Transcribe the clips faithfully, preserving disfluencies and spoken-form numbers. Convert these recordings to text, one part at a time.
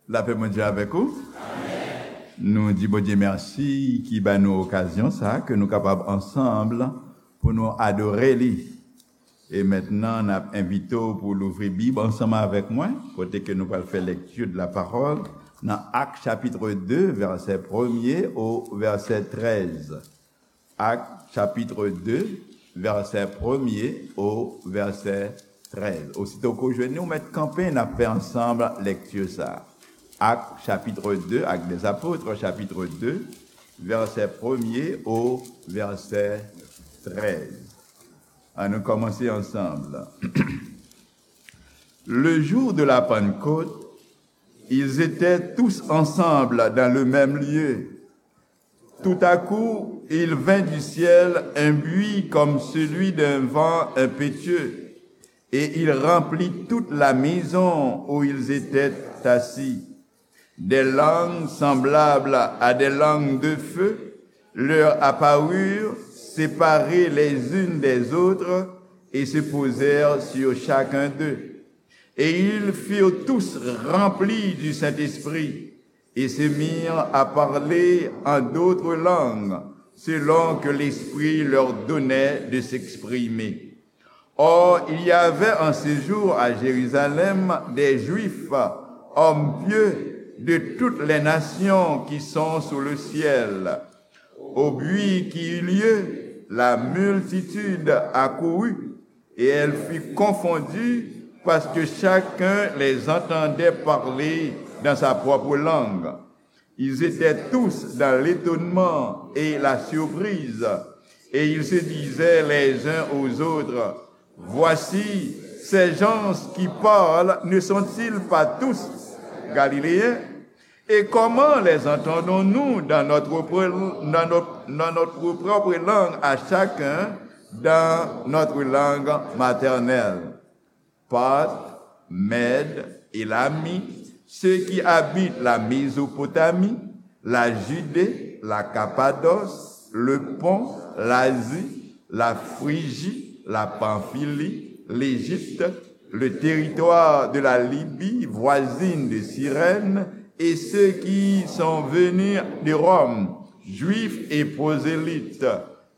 Lapè Bondye avèk ou. Nou di Bondye mèsi ki ba nou okazyon sa ke nou kapab ansanm pou nou adore li. E mentnan, n ap envite w pou louvri Bib ansanm avèk mwen, kote ke nou pral fè lecture de la parole nan Actes chapitre deux, vèsè premye o vèsè trèz. Actes chapitre deux, vèsè premye o vèsè trèz. Osito ke w jwenn li, ou mèt kanpe, n ap fè ansanm lèkti sa a. Actes chapitre deux, Actes des Apôtres chapitre deux, vèsè premye o vèsè trèz. Ann nou kòmanse ansanm. Le jour de la Pentecôte, ils étaient tous ensemble dans le même lieu. Tout à coup, il vint du ciel un bruit comme celui d'un vent impétueux, et il remplit toute la maison où ils étaient assis. Des langues semblables à des langues de feu leur apparurent, séparées les unes des autres, et se posèrent sur chacun d'eux. Et ils furent tous remplis du Saint-Esprit, et se mirent à parler en d'autres langues, selon que l'Esprit leur donnait de s'exprimer. Or, il y avait en ce jour à Jérusalem des Juifs, hommes pieux de toutes les nations qui sont sous le ciel. Au bruit qui eut lieu, la multitude accourut, et elle fut confondue, parce que chacun les entendait parler dans sa propre langue. Ils étaient tous dans l'étonnement et la surprise, et ils se disaient les uns aux autres, voici, ces gens qui parlent, ne sont-ils pas tous galiléens? Et comment les entendons-nous dans notre, dans notre, dans notre propre langue à chacun, dans notre langue maternelle? Parthes, Mèdes, Élamites, ceux qui habitent la Mésopotamie, la Judée, la Cappadoce, le Pont, l'Asie, la Phrygie, la Pamphylie, l'Égypte, le territoire de la Libye voisine de Cyrène, et ceux qui sont venus de Rome, Juifs et prosélytes,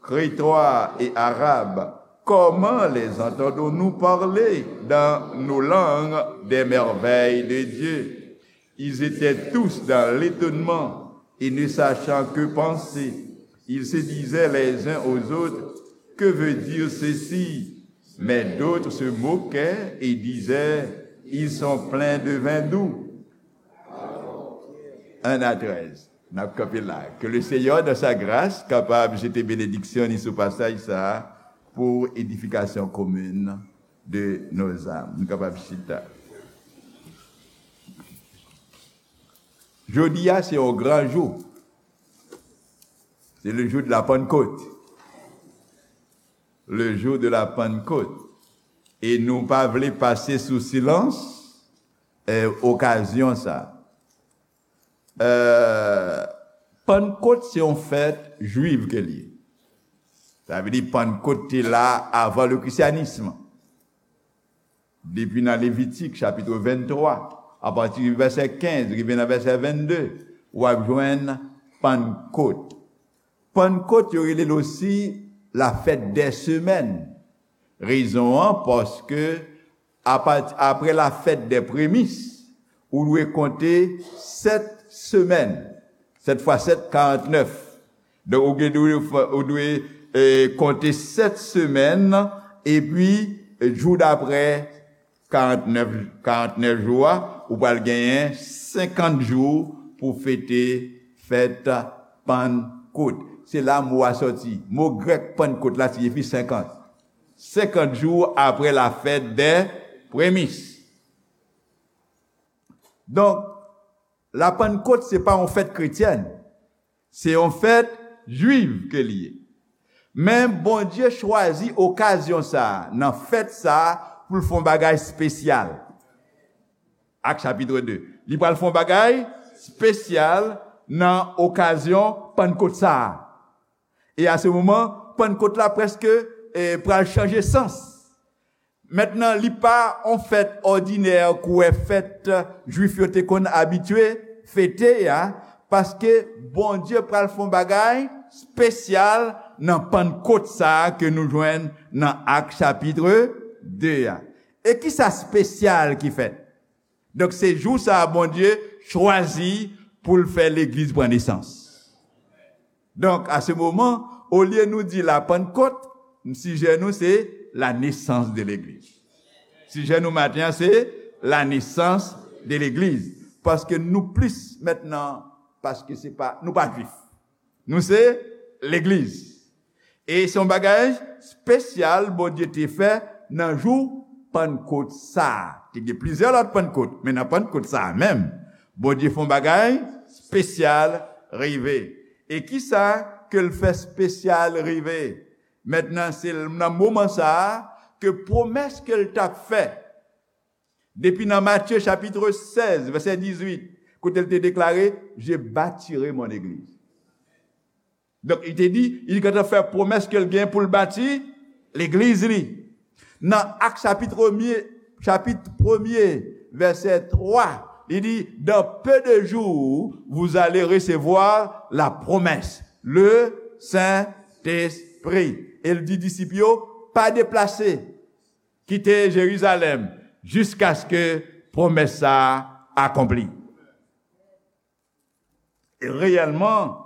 Crétois et Arabes, comment les entendons-nous parler dans nos langues des merveilles de Dieu? Ils étaient tous dans l'étonnement et ne sachant que penser, ils se disaient les uns aux autres, que veut dire ceci? Mais d'autres se moquaient et disaient, ils sont pleins de vin doux. Un à treize. N ap kanpe la. Ke le Seyè, dans sa grâce, kapab jete benediksyon ni sou pasaj sa a pou edifikasyon komin de nos âmes. Nou kapab chita. Jodi a, se yon gran jou. C'est le jour de la Pentecôte. Le jour de la Pentecôte. E nou pa vle pase sou silans, eh, okazyon sa a. Euh, Pannkot se yon fèt jwiv ke l ye. Sa vle di Pannkot te la avan le christianisme. Depi nan Levitik chapit venntwa, apati vèsè kenz rive nan vèsè vennde, w ap jwenn Pannkot. Pannkot, yo rele l osi la fèt dè semèn. Rezon an, paske apati, apre la fèt dè premis, ou dwe konte sèt semèn. Sèt fwa sèt, karantnèf. Donk, ou gen dwe, ou dwe, eh, konte sèt semèn, epi, eh, jou daprè, karantnèf, karantnèf jou a, ou pral genyen senkant jou pou fete fèt Pannkot. Se la mo a sòti. Mo grèk Pannkot la siyifi senkant. Senkant jou apre la fèt dè premis. Donk, la Pannkot se pa yon fèt kretyèn. Se yon fèt jwiv ke li ye. Men Bondye chwazi okazyon sa a, nan fèt sa a, pou l fè yon bagay espesyal. Ak chapit de. Li pral fè yon bagay espesyal nan okazyon Pannkot sa a. E a se moman, Pannkot la prèske, eh, pral chanje sans. Mentnan, li pa yon fèt òdinè kouwè fèt Jwif yo te konn abitye fete a, paske Bondye pral fè yon bagay espesyal nan Pannkot sa a ke nou jwenn nan Ak chapit de a. E ki sa espesyal ki fèt? Donk, se jou sa a Bondye chwazi pou l fè legliz pran nesans. Donk, a se moman, olye nou di la Pannkot, sijè nou se la naissance de l'église. Sijè nou maten an se la naissance de l'église. Paske nou plis mentnan, paske se pa, nou pa jwif. Nou se legliz. E se yon bagay espesyal Bondye te fè nan jou Pannkot sa a. Te gen plizyè lòt Pannkot, men nan Pannkot sa a menm, Bondye fè yon bagay espesyal rive. E ki sa ke l fè espesyal rive? Mentnan, se nan moman sa a ke pwomès ke l t ap fè, depi nan Matye chapit sèz, vèsè dizuit, kote l te deklare, "Je bâtirai mon église." Donk, li te di, li gentan fè pwomès ke l gen pou l bati legliz li. Nan Ak chapit premye, chapit premye, vèsè twa, li di, "Dans peu de jours, vous allez recevoir la promesse, le Saint-Esprit." E l di disip yo, "Pa deplase, kite Jerizalèm, jiskaske pwomès sa a akonpli." E reyèlman,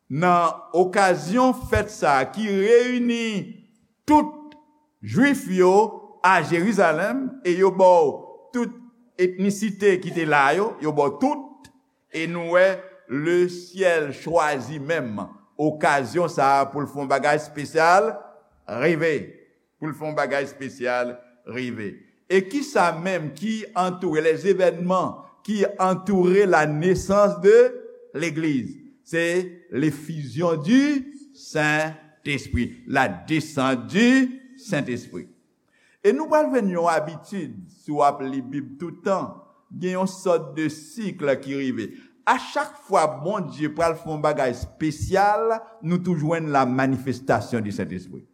nan okazyon fèt sa a ki reyini tout Jwif yo a Jerizalèm, e yo ba w tout etnisite ki te la yo, yo ba w tout, e nou wè lesyèl chwazi menm okazyon sa a pou l fè yon bagay espesyal rive. Pou l fè yon bagay espesyal rive. E ki sa menm ki antoure, les événements qui entourent la naissance de l'Église? Se l'effusion du Saint-Esprit, la descente du Saint-Esprit. E nou pral jwenn yon abitid, si w ap li Bib tout tan, gen yon sòt de sik ki rive. A chak fwa Bondye pral fè yon bagay espesyal, nou toujou jwenn la manifestation du Saint-Esprit.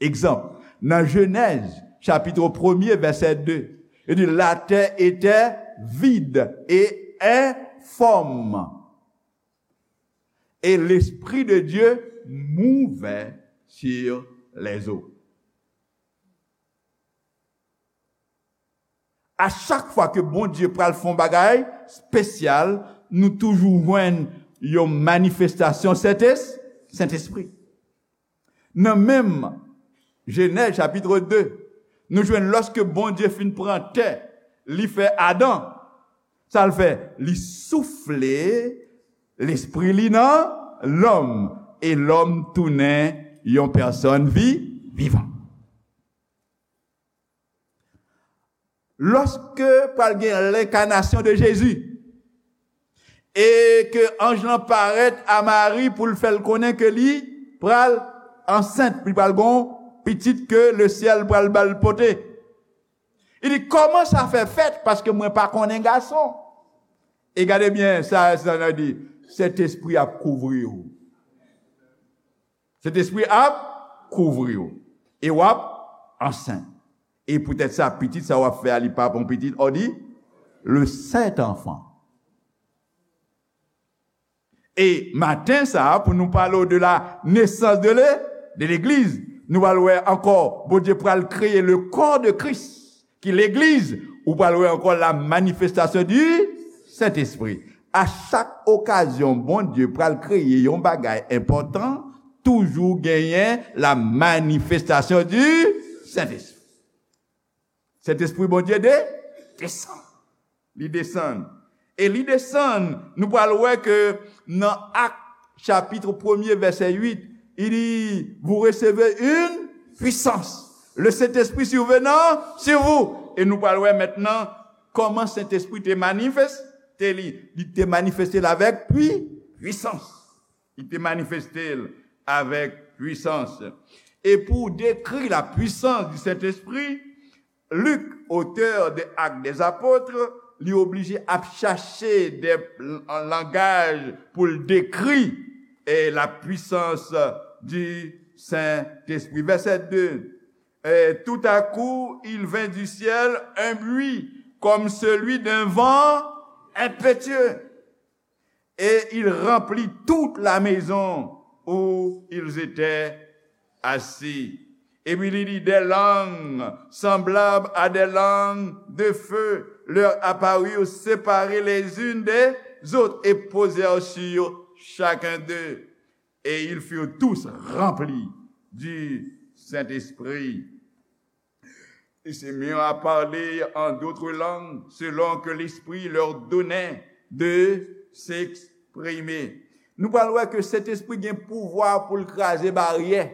Egzanp, nan Jenèz, chapit premye, vèsè de, li di, "La terre était vide et informe, et l'Esprit de Dieu mouvait sur les eaux." A chak fwa ke Bondye pral fè yon bagay espesyal, nou toujou jwenn yon manifestasyon Sentespri. Nan menm Jenèz chapit de, nou jwenn lòske Bondye fin pran tè, li fè Adan, sa l fè? Li soufle lespri li nan lòm, e lòm tounen yon pèsòn vi, vivan. Lòske pral gen lenkanasyon de Jezi, e ke anj lan parèt a Mari pou l fè l konnen ke li pral ansent, li pral gon pitit ke lesyèl pral ba l pote. Li di, "Kòman sa fè fèt? Paske mwen pa konnen gason." E gade byen, sa, sa nan di, "Sentespri ap kouvri w." Sentespri ap kouvri w. E w ap ansent. E poutèt sa, pitit sa w ap fè a, li pa pou yon pitit, on dit, le saint enfant. E maten sa a, pou nou pale w de la nesans de le, de legliz, nou pral wè ankò, Bondye pral kreye le corps de Christ, ki legliz, ou pral wè ankò la manifestation du Saint-Esprit. A chak okazyon, Bondye pral kreye yon bagay enpòtan, toujou genyen la manifestation du Saint-Esprit. Sentespri Bondye de, desann. Li desann. E li desann, nou pral wè ke nan Ak chapit premye, vèsè uit, li di, "Vous recevez une puissance. Le Saint-Esprit survenant sur vous." E nou pral wè mentnan kòman Sentespri te manifeste li. Li te manifeste l avèk pwi, pwisans. Li te manifeste l avèk pwisans. E pou dekri la puissance du Saint-Esprit, Lik, otè de Actes des Apôtres, li oblije ap chache de, an langaj pou l dekri, e, la puissance du Saint-Esprit. Vèsè de, Et tout à coup, il vint du ciel un bruit comme celui d'un vent impétueux. Et il remplit toute la maison où ils étaient assis. Epi li di, des langues semblables à des langues de feu leur apparurent, séparées les unes des autres, et posèrent sur chacun d'eux. Et ils furent tous remplis du Saint-Esprit. Ils se mirent à parler en d'autres langues, selon que l'Esprit leur donnait de s'exprimer. Nou pral wè ke Sentespri gen pouvwa pou l kraze baryè.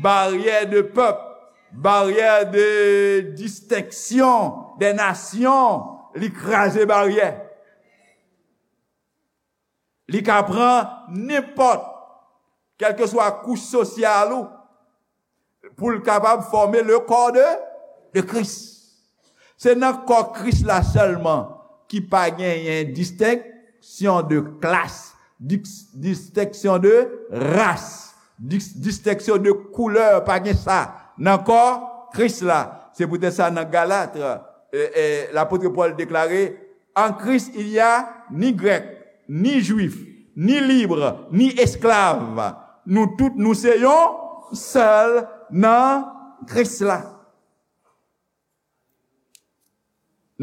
Baryè de pèp, baryè de distenksyon de nasyon, li kraze baryè. Li ka pran nenpòt, kèlkeswa kouch sosyal ou, pou l kapab fòme le corps de, de Christ. Se nan kò Kris la sèlman ki pa genyen distenksyon de klas, dis-, distenksyon de ras, dis-, distenksyon de koulè, pa gen sa nan kò Kris la. Se poutèt sa nan Galat, e, e, lapot Pòl deklare, en Christ, il y a ni grec, ni juif, ni libre, ni esclave. Nou tout, nou se yon sèl nan Kris la.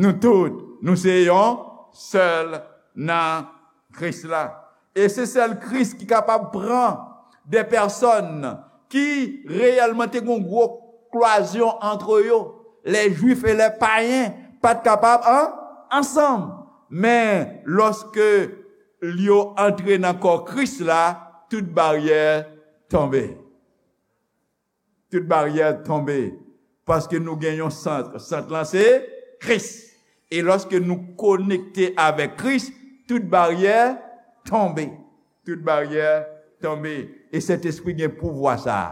Nou tout, nou se yon sèl nan Kris la. E se sèl Kris ki kapab pran de pèsòn ki reyèlman te gen yon gwo klwazyon antre yo. Les Juifs et les païens pa t kapab an, ansanm. Men, lòske yo antre nan kò Kris la, tout baryè tonbe. Tout baryè tonbe. Paske nou gen yon sant. Sant lan se Kris. E lòske nou konekte avèk Kris, tout baryè tonbe. Tout baryè tonbe. E Sentespri gen pouvwa sa a.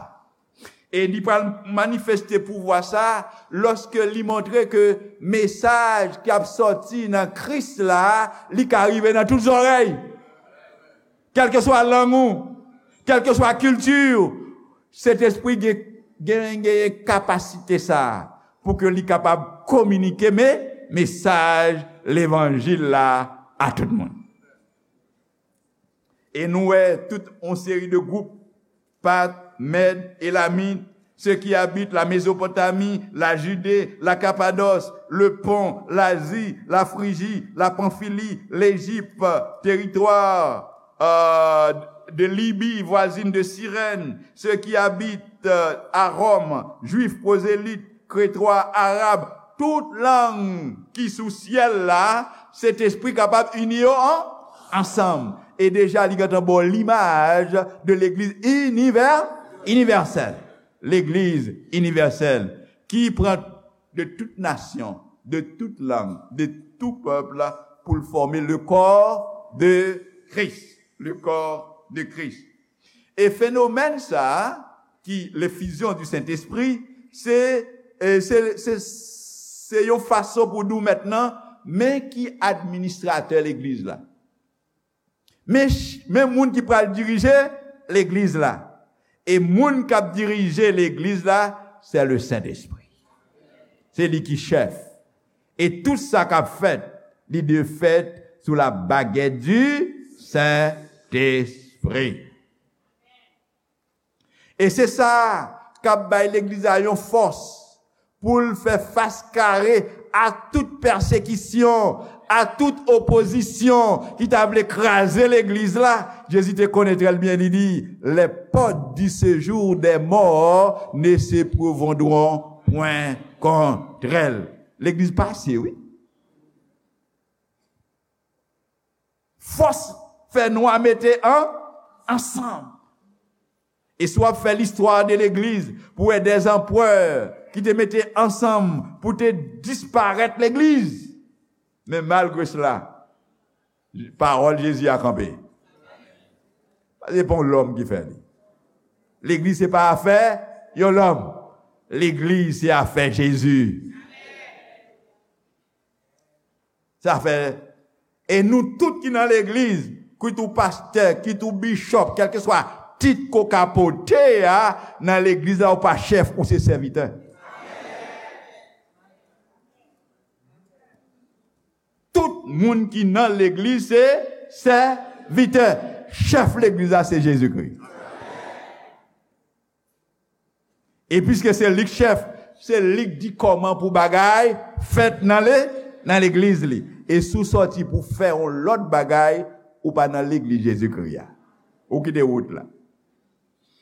E li pral manifeste pouvwa sa a lòske li montre ke mesaj k ap sòti nan Kris la, li ka rive nan tout zòrèy. Kèlkeswa lang ou, kèlkeswa kilti ou, Sentespri gen, gen, gen kapasite sa a pou ke li kapab kominike me, mesaj levanjil la a tout moun. E nou wè tout yon seri de gwoup, Pat, Mèd, Elamit, ceux qui habitent la Mésopotamie, la Judée, la Cappadoce, le Pont, l'Asie, la Phrygie, la Pamphylie, l'Égypte, territoire, euh, de Libye voisine de Cyrène, ceux qui habitent, euh, à Rome, Juifs, prosélytes, Kretwa, Arab, tout lang ki sou syèl la, Sentespri kapab ini yo an, ansanm. E deja, li gentan ba w limaj de legliz inivè, inivèsèl. Legliz inivèsèl ki pran de tout nasyon, de tout lang, de tout pèp pou l fòme le corps de Christ. Le corps de Christ. E fenomèn sa a, ki le fusion du Saint-Esprit, se, e, se, se, se yon fason pou nou mentnan, men ki administratè legliz la. Men ch-, men moun ki pral dirije legliz la. E moun k ap dirije legliz la, se le Sentespri. Se li ki chèf. E tout sa k ap fèt, li dwe fèt sou la baguette du Saint-Esprit. E se sa k ap bay legliz la yon fòs pou l fè fas kare a tout pèsekisyon, a tout opozisyon ki ta vle kraze legliz la. Jezi te konnen trè byen, li di, les portes du séjour des morts ne se pourvendront point contre elle. Legliz pase, wi. Fòs fè nwa mete an, ansanm. E si w ap fè listwa de legliz, pou wè dè anperè ki te mete ansanm pou te disparèt legliz. Men malgre sela, pawòl Jezi a kanpe. Se pa yon lòm ki fè li. Legliz se pa afè yon lòm. Legliz se afè Jezi. Sa fè, e nou tout ki nan legliz, kit ou pastè, kit ou bishop, kèlkeswa Tit ke w ka pote a nan legliz la, ou pa chèf, ou se sèvitè. Tout moun ki nan legliz se sèvitè. Chèf legliz la se Jezikri. E piske se li k chèf, se li k di kòman pou bagay fèt nan le, nan legliz li. E si w sòti pou fè yon lòt bagay, ou pa nan legliz Jezikri a. Ou kite wout la.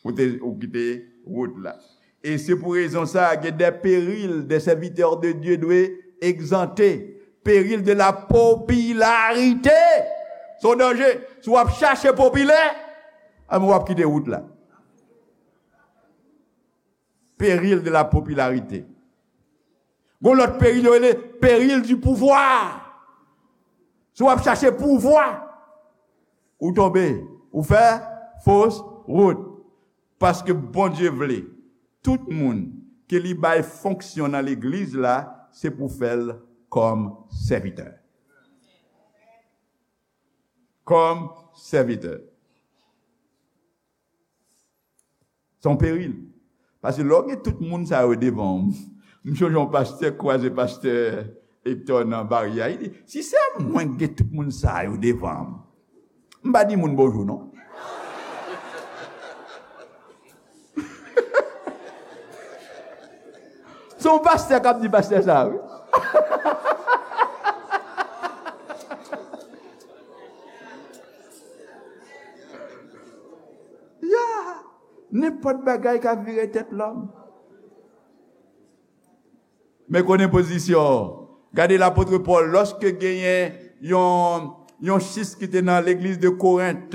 Ou te, ou kite wout la. E se pou rezon sa, gen de peril de serviteur de Dieu dwe egzante. Peril de la popularité. Se yon danje. Si w ap chache popilè, a, w ap kite wout la. Peril de la popularité. Gon lòt peril yo rele peril du pouvoir. Si w ap chache pouvwa, ou tonbe, ou fè fos wout. Paske Bondye vle, tout moun ke li bay fonksyon nan legliz la, se pou fè l kòm sèvitè. Kòm sèvitè. Se yon peril. Paske lè w gen tout moun sa yo devan w, m sonje yon pastè kwaze pastè Hector nan baryè a, li di, "Si se mwen ki gen tout moun sa yo devan m, m pa di moun bonjou non." Se yon pastè k ap di pastè sa, wi. Ya, nenpòt bagay ka vire tèt lòm. Men konnen pozisyon w. Gade lapot Pòl, lòske genyen yon, yon sis ki te nan legliz de Korent,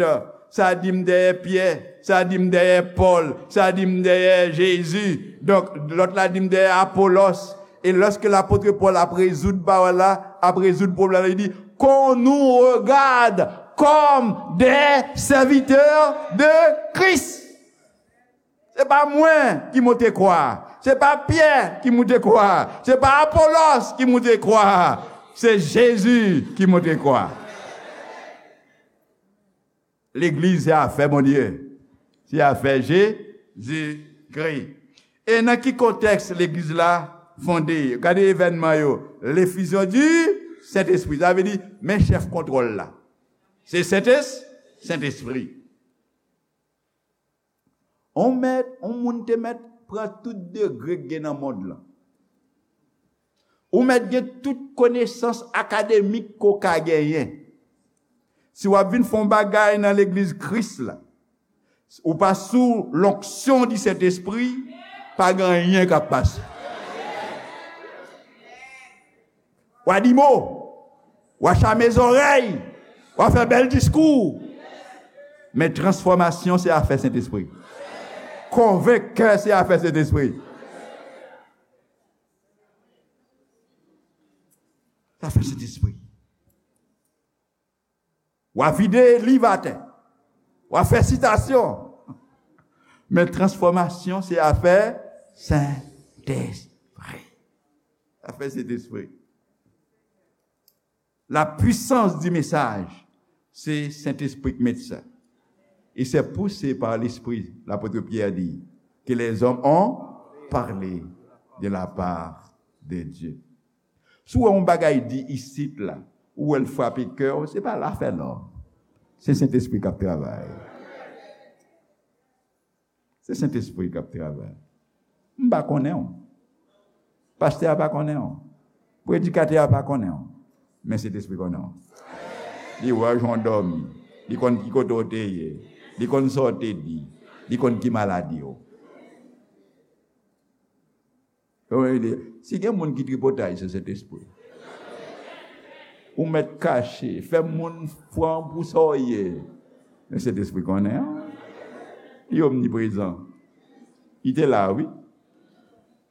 sa di m dèyè Pyè, sa di m dèyè Pòl, sa di m dèyè Jezi. Donk, lòt la di m dèyè Apolòs. E lòske lapot Pòl ap rezoud pawòl la, ap rezoud pwoblèm la, li di, qu'on nous regarde comme des serviteurs de Christ. Se pa mwen ki monte kwa a. Se pa Pyè ki monte kwa a. Se pa Apolòs ki monte kwa a. Se Jezi ki monte kwa a. Legliz se afè Bondye. Se afè Jezikri. E nan ki kontèks legliz la fonde? Gade evènman yo. L'effusion du Saint-Esprit. Sa vle di, men chèf kontwòl la. Se Sentespri. Sentespri. On mèt, on moun te mèt pran tout degre k gen nan mond lan. Ou mèt gen tout konesans akademik ke w ka genyen. Si w ap vin fè yon bagay nan legliz Kris la, ou pa sou l'onction du Saint-Esprit, pa gen anyen k ap pase. W a di mo, w a chame zòrèy, w a fè bèl diskou. Men transfòmasyon se afè Sentespri. Konvenk kè se afè Sentespri. Se afè Sentespri. W a vide liv atè. W a fè sitasyon. Men transfòmasyon se afè Sentespri. Afè Sentespri. La puissance du message, se Sentespri k met sa. Et c'est poussé par l'Esprit, l'apôtre Pierre dit, que les hommes ont parlé de la part de Dieu. Si w wè yon bagay di isit la, ou wè l frape kè w, se pa lafè lòm. Se Sentespri k ap travay. Se Sentespri k ap travay. M pa konnen w. Pastè a pa konnen w. Predikatè a pa konnen w. Men Sentespri konnen w. Li wè w jan w dòmi. Li konn ki kote w te ye. Li konn sa w te di. Li konn ki maladi w. Yo, yo di, si gen moun ki tripotay, se Sentespri. Ou mèt kache, fè moun pran w pou sa w ye. Men Sentespri konnen, an. Li omniprezan. Li te la, wi.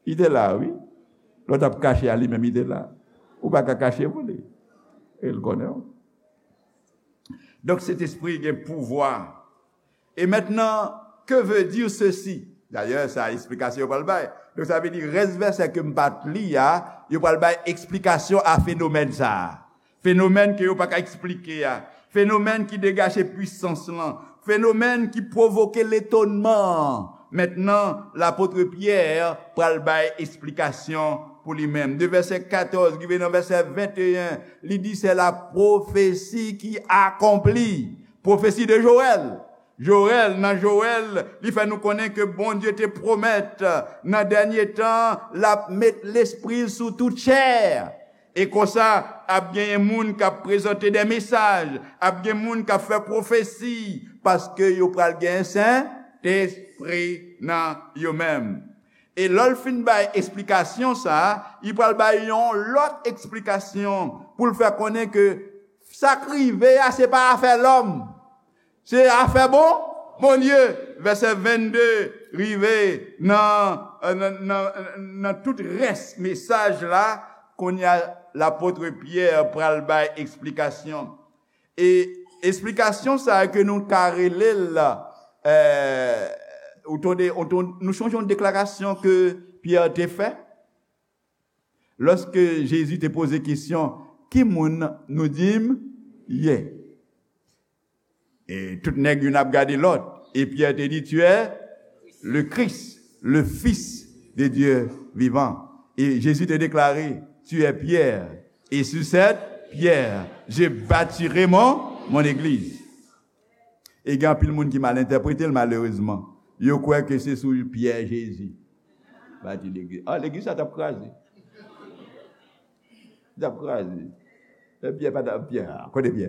Li te la, wi. Lè w t ap kache a, li menm, li te la. Ou pa ka kache pou li. E l konnen w. Donk, Sentespri gen pouvwa. Et maintenant, que veut dire ceci? Dayè, sa eksplikasyon yo pral bay. Donk, sa vle di, rès vèsè ke m pa t li a, yo pral bay eksplikasyon a fenomèn sa a. Fenomèn ke yo pa ka eksplike a. Fenomèn ki degaje pwisans lan. fenomèn ki pwovoke letonman an. Mentnan, lapot Pyè pral bay esplikasyon pou li menm. De vèsè katòz rive nan vèsè venteyen, li di, c'est la prophétie qui accomplit. Pwofesi de Jowèl. Jowèl, nan Jowèl, li fè nou konnen ke Bondye te pwomèt, nan dènye tan, l ap met lespri l sou tout chè. E konsa, ap genyen moun k ap prezante de mesaj, ap gen moun k ap fè pwofesi, paske yo pral gen Sentespri nan yo menm. E lè l fin bay esplikasyon sa a, li pral bay yon lòt esplikasyon pou l fè konnen ke sa k rive a, se pa afè lòm. Se afè bon, Bondye. Vèsè vennde rive nan, nan, nan, nan tout rès mesaj la, kounye a, lapot Pyè pral bay esplikasyon. E esplikasyon sa a ke nou ka rele l, eh, ou tonde, ou tonde, nou chonje yon deklarasyon ke Pyè te fè? Lòske Jezi te poze kesyon, "Ki moun nou di m ye?" E tout nèg youn ap gade lòt. E Pyè te di, "Tu es le Christ, le Fils de Dieu vivant." E Jezi te deklare, "Tu es Pierre, et sur cette pierre, je bâtirai mon, mon église." E gen anpil moun ki mal entèprete l, malerezman. Yo kwè ke se sou Pyè Jezi bati legliz. Ah, legliz sa t ap kraze. Li t ap kraze. E Pyè pa t ap, Pyè, ah, kote Pyè?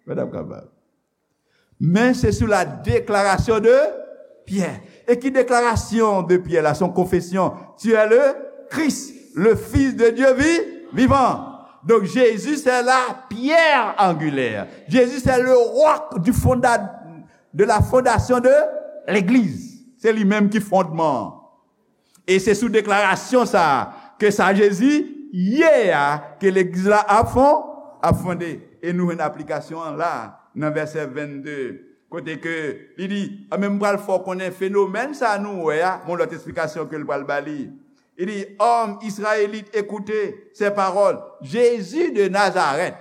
Pa t ap kapab. Men se sou la deklarasyon de Pyè. E ki deklarasyon de Pyè la? Son konfesyon. Tu es le Christ, le Fils de Dieu vi-, vivant. Donc Jésus, c'est la pierre angulaire. Jésus, c'est le roc du fonda-, de la fondation de l'Église. Se li menm ki fondman an. E se sou deklarasyon sa a ke sa Jezi ye a ke legliz la ap fon-, ap fonde. E nou jwenn aplikasyon an la, nan vèsè vennde, kote ke li di, "Anben, m pral fè w konnen fenomèn sa a nou wè a," gon lòt esplikasyon ke l pral ba li. Li di, "Hommes israélites, écoutez ces paroles. Jésus de Nazareth."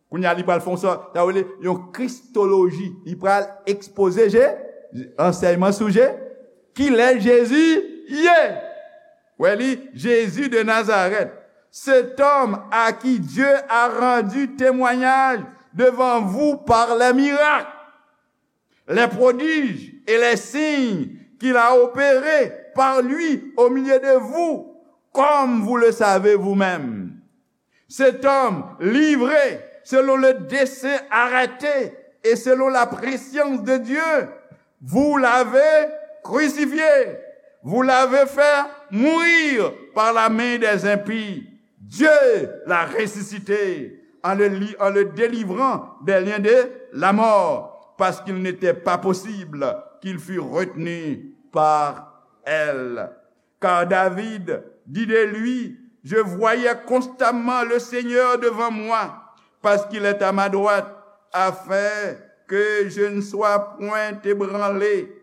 Kounye a, li pral fè yon sòt, sa vle di, yon kristoloji. Li pral ekspoze Je-, ansèyman sou Je-, kilè Jezi ye. Wè li, Jésus de Nazareth, cet homme à qui Dieu a rendu témoignage devant vous par les miracles, les prodiges et les signes qu'il a opérés par lui au milieu de vous, comme vous le savez vous-même. Cet homme livré selon le dessein arrêté et selon la prescience de Dieu, vous l'avez crucifié, vous l'avez fait mourir par la main des impies. Dieu l'a ressuscité en le li-, en le délivrant des liens de la mort, parce qu'il n'était pas possible qu'il fût retenu par elle. Car David dit de lui, je voyais constamment le Seigneur devant moi, parce qu'il est à ma droite, afin que je ne sois point ébranlé.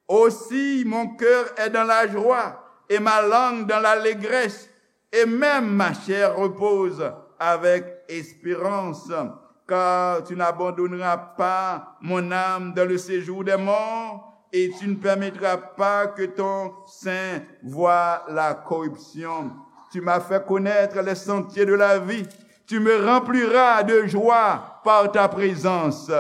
Aussi mon cœur est dans la joie et ma langue dans l'allégresse, et même ma chair repose avec espérance, car tu n'abandonneras pas mon âme dans le séjour des morts, et tu ne permettras pas que ton saint voie la corruption. Tu m'as fait connaître les sentiers de la vie. Tu me rempliras de joie par ta présence.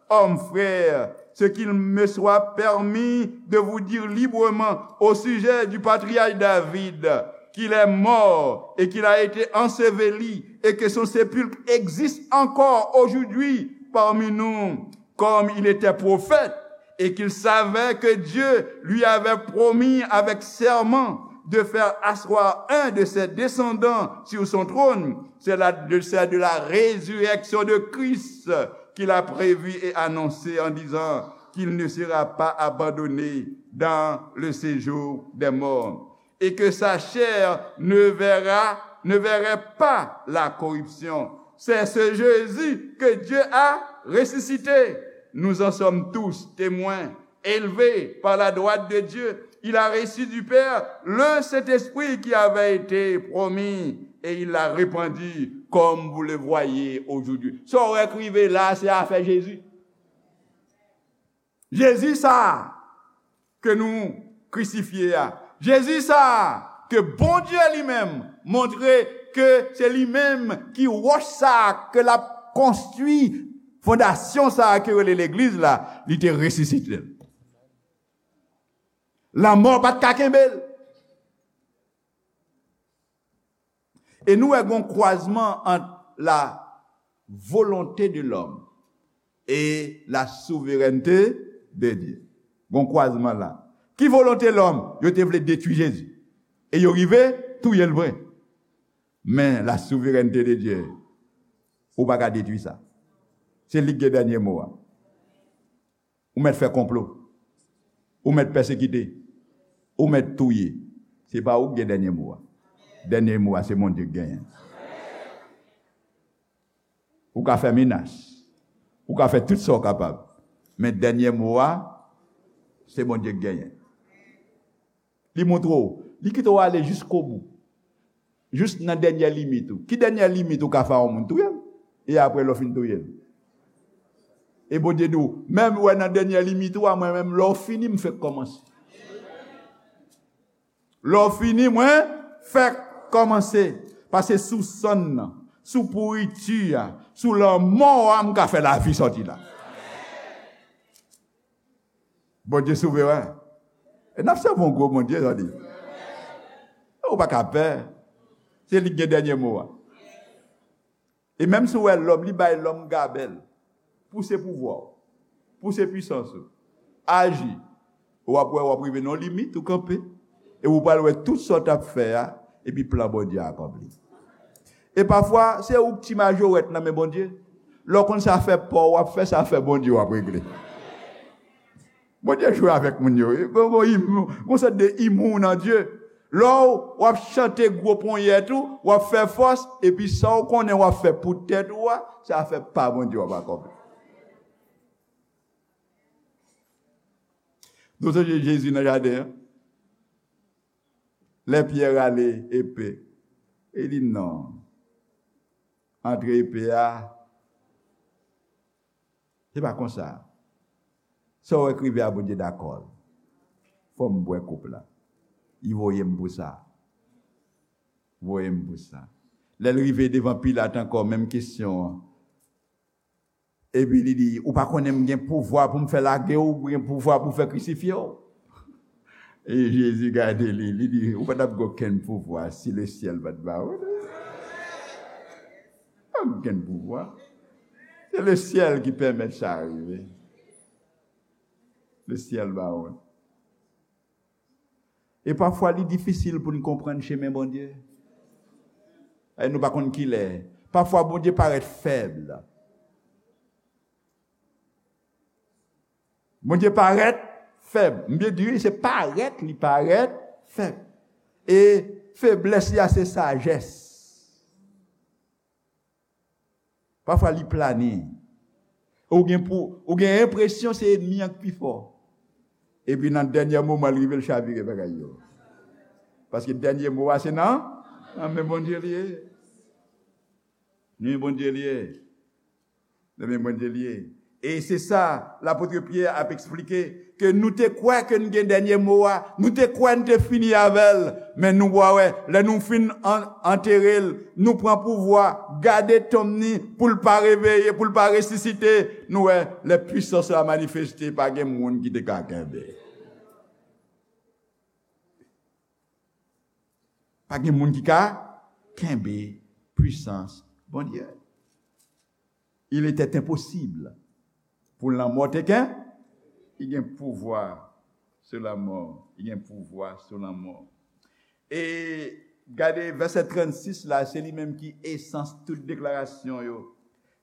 Homme frère, ce qu'il me soit permis de vous dire librement au sujet du patriarche David, qu'il est mort et qu'il a été enseveli et que son sépulcre existe encore aujourd'hui parmi nous, comme il était prophète et qu'il savait que Dieu lui avait promis avec serment de faire asseoir un de ses descendants sur son trône. C'est la, de, c'est de la résurrection de Christ qu'il a prévu et annoncé en disant qu'il ne sera pas abandonné dans le séjour des morts et que sa chair ne verra, ne verrait pas la corruption. C'est ce Jésus que Dieu a ressuscité. Nous en sommes tous témoins. Élevé par la droite de Dieu, il a reçu du Père le Saint-Esprit qui avait été promis et il l'a répandu comme vous le voyez aujourd'hui. Sa w wè k rive la, se afè Jezi. Jezi sa a ke nou krisifye a. Jezi sa a ke Bondye li menm montre ke se li menm ki wòch sa a ke l ap konstwi fondasyon sa a ke rele legliz la, li te resisite l. Lanmò pa t ka kenbe l. E nou wè gon kwazman ant la volonté de l'homme et la souveraineté de Dieu. Gon kwazman la. Ki volonte lòm? Yo te vle detwi Jezi. E yo rive touye l vre. Men la souveraineté de Dieu, ou pa ka detwi sa. Se li ki gen dènye mo a. Ou mèt fè konplo. Ou mèt pèsekite. Ou mèt touye. Se pa ou ki gen dènye mo a. Dènye mo a, se Bondye ki genyen. Ou ka fè menas. Ou ka fè tout sa w kapab. Men dènye mo a, se Bondye ki genyen. Li montre w. Li kite w ale jiskobou. Jis nan dènye limit ou. Ki dènye limit ou ka fè a yon moun? Touye l. E apre, lè w fin touye l. E Bondye di w, menm wè nan dènye limit ou a, mwen menm, lè w fini, m fèk kòmanse. Lè w fini, mwen fèk kòmanse. Paske sou sann nan, sou pouriti a, sou lanmò a, m ka fè lavi sòti la. Bondye souveren. E n ap sèvi yon gwo Bondye, tande. Ou pa ka pè. Se li ki gen dènye mo a. E menm si w wè lòm, li bay lòm gabèl. Pouse pouvwa w. Pouse pwisans ou. Aji. W ap wè, w ap rive nan yon limit, ou kanpe. E ou pral wè tout sa w t ap fè a, epi plan Bondye a akonpli. E pafwa, se ou k ti majorèt nan men Bondye. Lè w konn sa fè pa w w ap fè, sa fè Bondye w ap regle. Bondye jwe avèk moun yo. Gon, gon, gon sòt de imou nan Dye. Lè w, w ap chante gwo ponyèt ou, w ap fè fòs, epi sa w konnen w ap fè pou tèt ou a, se afè pa Bondye w ap akonpli. Nou sonje Jezi nan jaden an? Lè Pyè rale epe, e li non. Antre epe a, se pa konsa. Sa w wè k rive a, Bondye dakò l. Fò m bwè koup la. Li voye m pou sa. Voye m pou sa. Lè l rive devan Pilat ankò, menm kesyon an. Epi li di, ou pa konnen m gen pouvwa pou m fè lage w, ou gen pouvwa pou m fè krisifye w? E Jezi gade li, li di, ou pa t ap gen okenn pouvwa si lesyèl pa t ba ou. Pa okenn pouvwa. Se lesyèl ki pèmèt sa rive. Lesyèl ba ou. E pafwa, li difisil pou n konprann chemen Bondye. E nou pa konn kilè. Pafwa, Bondye parèt fèb. Bondye parèt fèb. M byen di, wi, se parèt, li parèt fèb. E feblès li a, se sajès. Pafwa, li plane. Ou gen pou, ou gen enpresyon se ènmi an k pi fò. Epi nan dènye moman, l rive, l chavire bagay yo. Paske dènye mo a, se nan, nan men Bondye li ye. Nan men Bondye li ye. Nan men Bondye li ye. E se sa, lapot Pyè ap eksplike, ke nou te kwè ke n gen dènye mo a, nou te kwè n te fini avè l, men nou pa wè, lè nou fin an-, antere l, nou pran pouvwa, gade tonm ni, pou l pa reveye, pou l pa resisite, nou wè, lè pwisans la manifeste, pa gen moun ki te ka kenbe. Pa gen moun ki ka kenbe pwisans Bondye. Il était impossible pou lanmò te ken-, li gen pouvwa sou lanmò. Li gen pouvwa sou lanmò. E gade vèsè trannsis la, se li menm ki esans tout deklarasyon yo.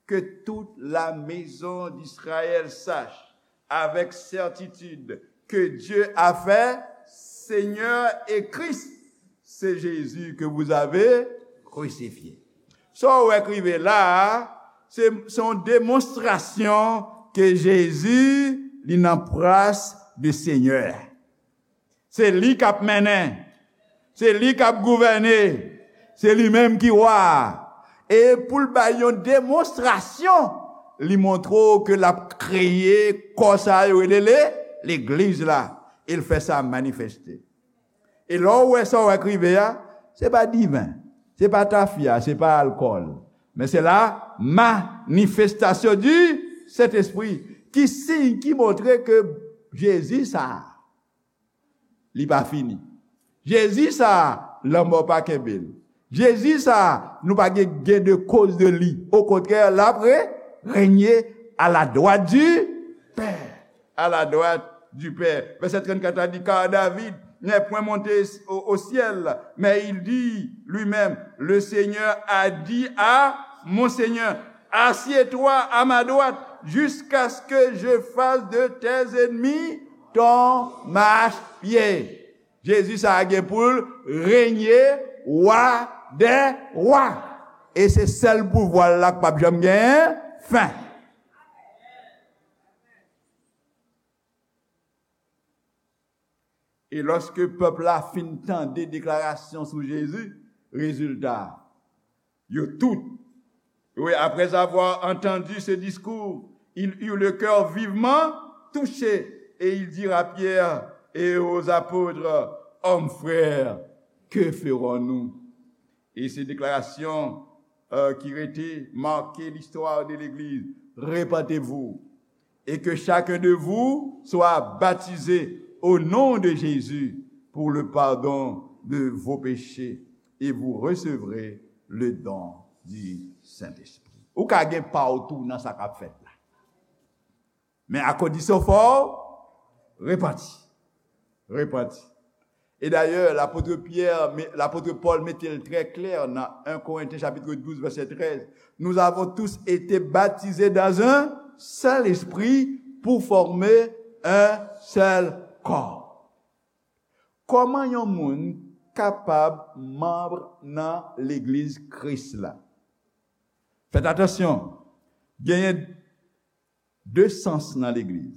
Que toute la maison d'Israël sache avec certitude que Dieu a fait, Seigneur et Christ, c'est Jésus que vous avez crucifié. Sa w wè k rive la a, se, se yon demonstrasyon ke Jezi, li nan plas de Senyè. Se li k ap mennen. Se li k ap gouvène. Se li menm ki wa a. E pou l bay yon demonstrasyon, li montre w ke l ap kreye kò sa yo rele le, legliz la. E l fè sa manifeste. E lè w wè sa w wè k rive a, se pa diven, se pa tafya, se pa alkòl, men se la manifestasyon di Sentespri. Ki siy ki montre ke Jezi sa a, li pa fini. Jezi sa a, lanmò pa kenbe l. Jezi sa a, nou pa gen gain de cause de li. Okontrè, l ap re, renye à la droite du Père. À la droite du Père. Vèsè trannkat la di, car David n'est point monté au, au ciel, mais il dit lui-même, le Seigneur a dit à mon Seigneur, assieds-toi à ma droite jusqu'à ce que je fasse de tes ennemis ton marchepied. Jezi sa a gen pou l renye wa dè wa. E se sèl pouvwa l la k p ap janm gen fen. E lòske pèp la fin tande deklarasyon sou Jezi, rezilta, yo tout, oui, après avoir entendu ce discours, ils eurent le cœur vivement touché, et ils dirent à Pierre et aux apôtres, hommes frères, que ferons-nous? E se deklarasyon, euh, ki rete make listwa de legliz. Repentez-vous, et que chacun de vous soit baptisé au nom de Jésus pour le pardon de vos péchés, et vous recevrez le don du Saint-Esprit. Ou ka gen pa w tou nan sa k ap fèt la. Men a kondisyon fò w repanti. Repanti. E dayè, lapot Pyè, lapot Pòl mete l trè klè nan en Korentyen chapit douz, vèsè trèz, nous avons tous été baptisés dans un seul esprit pour former un seul corps. Kòman yon moun kapab manm nan legliz Kris la? Fèt atansyon, genyen de sans nan legliz.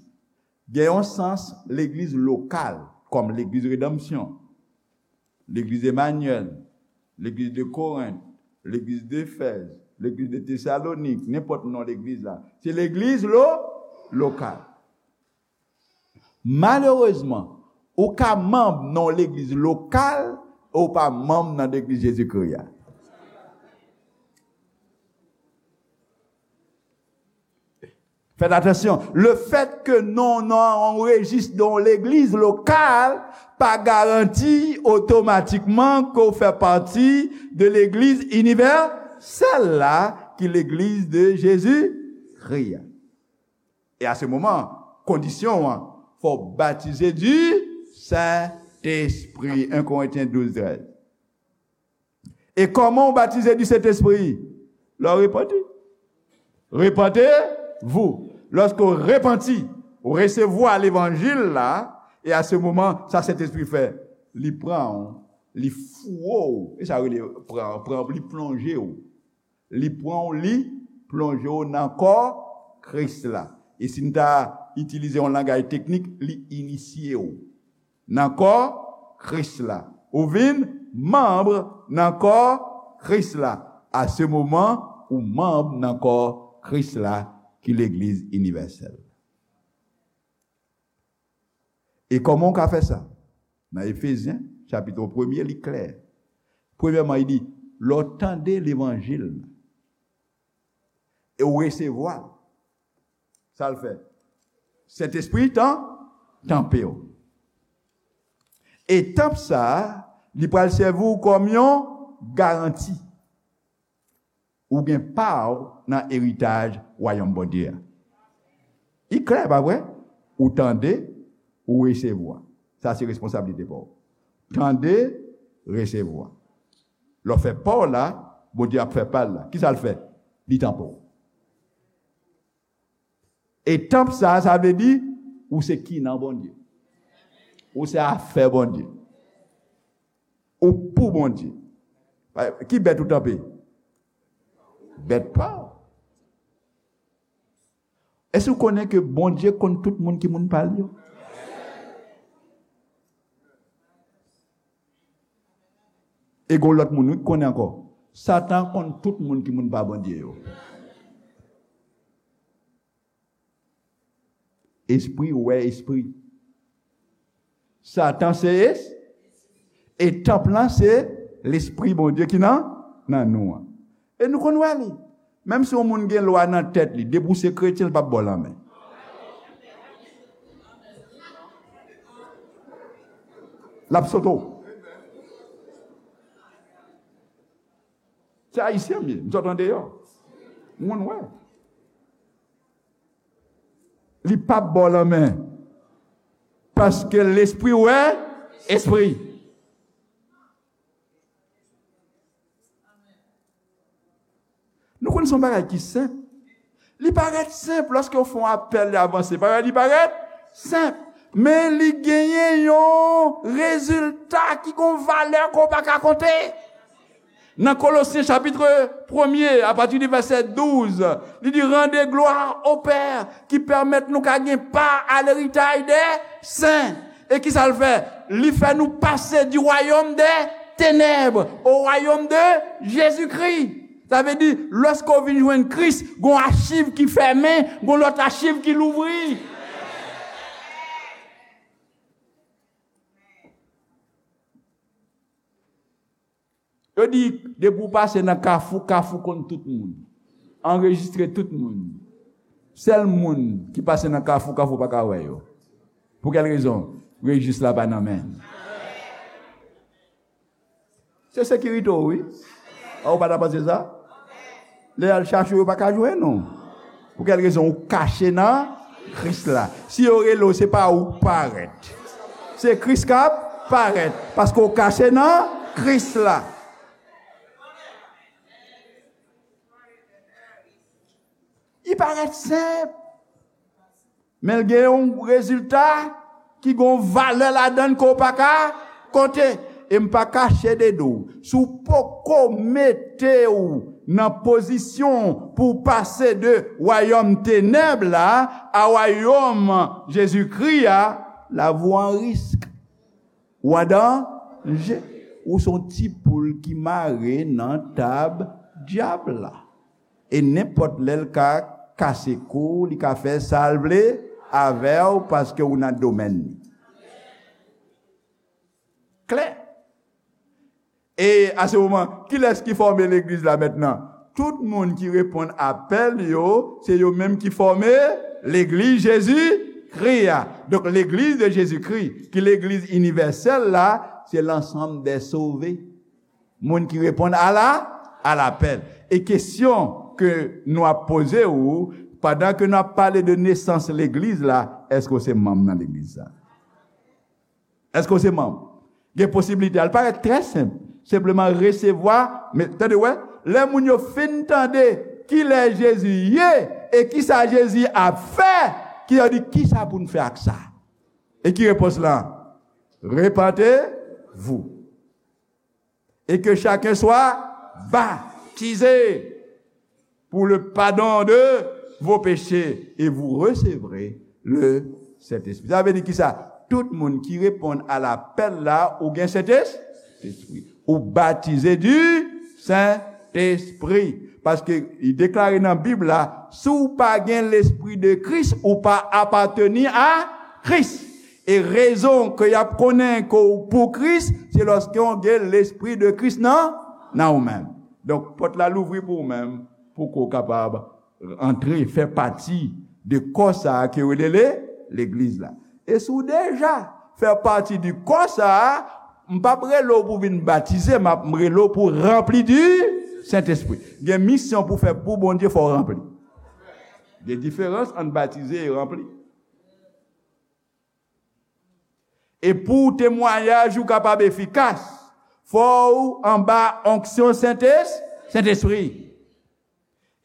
Gen yon sans legliz lokal, kòm legliz Redanmsyon, legliz Emanyèl, legliz de Korent, legliz de Efèz, legliz de Tesalonik, nenpòt non legliz la. Se legliz lo, lokal. Malerezman, ou ka manm nan yon legliz lokal, e ou pa manm nan legliz Jezikri a. Fèt atansyon, lefètke non w nan yon rejis de yon legliz lokal pa garanti otomatikman ke w fè pati de legliz inivèsèl la, ki legliz de Jezikri a. E a se moman, kondisyon an, fò w batize di Sentespri, en Korentyen douz trèz. E kòman w batize di Sentespri? Lè w repanti. Repentez-vous. Lòske w repanti, w resevwa levanjil la, e a se moman, sa Sentespri fè, li pran w, li fouwe w. E sa rele pran, pran, li plonje w. Li pran w, li plonje w nan kò Kris la. E si n ta itilize yon langaj teknik, li inisye w nan kò Kris la. Ou vin manm nan kò Kris la. A se moman, ou manm nan kò Kris la, ki legliz inivèsèl. E kòman w ka fè sa? Nan Efezyen, chapit premye, li klè. Premyèman, li di, lè w tande levanjil la, e w resevwa l, sa l fè? Sentespri tan, tanpe w. E tanp sa a, li pral sèvi w kòm yon garanti. Ou gen pa w nan eritaj wayòm Bondye a. Li klè, pa vre? Ou tande, ou resevwa. Sa se responsablite pa w. Tande, resevwa. Lè w fè pa w la, Bondye ap fè pa l la. Kisa l fè? Li tanpe w. E tanp sa a, sa vle di, ou se kinan Bondye. Ou se afè Bondye. Ou pou Bondye. Ki bèt ou tanpe? Bèt pa w. Èske w konnen ke Bondye konn tout moun ki moun pa l yo? E gon lòt moun, wi, ki konnen ankò. Satan konn tout moun ki moun pa Bondye yo. Espri wè espri. Satan se es-, e tanp lan se Lespri Bondye ki nan, nan nou an. E nou konn wè li. Menm si yon moun gen lwa nan tèt li, depi w se kretyen, l p ap ba w lanmen. L ap sote w. Se Ayisyen m ye, m sot andeyò. M konn wè. Li p ap ba w lanmen. Paske lespri wè espri. Nou konn se yon bagay ki senp. Li parèt senp lòske w fè yon apèl, li avanse. Parèt, li parèt senp. Men li genyen yon rezilta ki gon valè ke w pa ka konte. Nan Kolosyen chapit premye, apati di vèsè douz, li di, rendez gloire au Père qui permet nou ka gen pa a leritay dè sen. E kisa l fè? Li fè nou pase du royaume des ténèbres au royaume de Jésus-Christ. Sa vle di, lòske w vin jwenn Kris, gon achiv ki fèmen, gon lòt achiv ki louvri. Yo di, depi w pase nan Kafou, Kafou konn tout moun. Anrejistre tout moun. Sèl moun ki pase nan Kafou, Kafou pa ka wè yo. Pou kèl rezon? Rejis la pa nan men l. Se sekirite w, wi. A, ou pa ta panse sa? Lè y al chache w, yo pa ka jwenn ou. Pou kèl rezon? Ou kache nan Kris la. Si yo rele w, se pa ou k parèt. Se Kris k ap parèt. Paske w kache nan Kris la. Li parèt senp. Men l gen yon rezilta ki gen yon valè ladan l ke w pa ka konte. E m pa kache de di w, si w poko mete w nan pozisyon pou w pase de wayòm tenèb la a wayòm Jezikri a, lavi w an risk. Ou an danje. Ou se yon ti poul ki mare nan tab dyab la. E nenpòt lè l ka kase kou w, li ka fè sa l vle avè w paske ou nan domèn li. Klè. E a se moman, kilès ki fòme legliz la mentnan? Tout moun ki reponn apèl yo, se yo menm ki fòme legliz Jezikri a. Donk, legliz de Jezikri, ki legliz inivèsèl la, se l'ensemble des sauvés. Moun ki reponn a la, a lapèl. E kesyon ke nou ap poze w, pandan ke n ap pale de nesans legliz la, èske w se manm nan legliz sa? Èske w se manm? Gen posiblite. Al parèt trè senp. Senpleman resevwa. Men, tande, wè, lè moun yo fin tande kilè Jezi ye e kisa Jezi ap fè, ki yo di, "Kisa pou n fè ak sa?" E ki repons lan? "Repentez-vous et que chacun soit baptisé pour le pardon de vos péchés et vous recevrez le Saint-Esprit." Sa vle di kisa? Tout moun ki reponn a lapèl la, ou gen Sentespri. Ou batize du Sentespri. Paske li deklare nan Bib la, si w pa gen Lespri de Kris, ou pa apateni a Kris. E rezon ke y ap konnen ke w pou Kris, se lòske w gen Lespri de Kris nan, nan ou menm. Donk, pòt la louvri pou ou menm, pou ke w kapab antre, fè pati de kò sa a ke yo rele le, legliz la. E si w deja fè pati di kò sa a, m p ap rele w pou vin batize, m ap rele w pou ranpli di Sentespri. Gen misyon pou fè pou Bondye, fò w ranpli. Gen diferans ant batize e ranpli. E pou temwayaj ou kapab efikas, fò w anba onksyon Sentes-, Sentespri.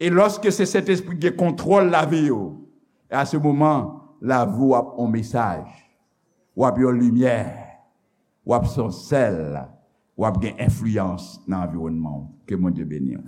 E lòske se Sentespri gen kontwòl lavi w, e a se moman, lavi w ap yon mesaj, w ap yon limyè, w ap se yon sèl, w ap gen enfliyans nan anviwònman w. Ke Bondye beni w.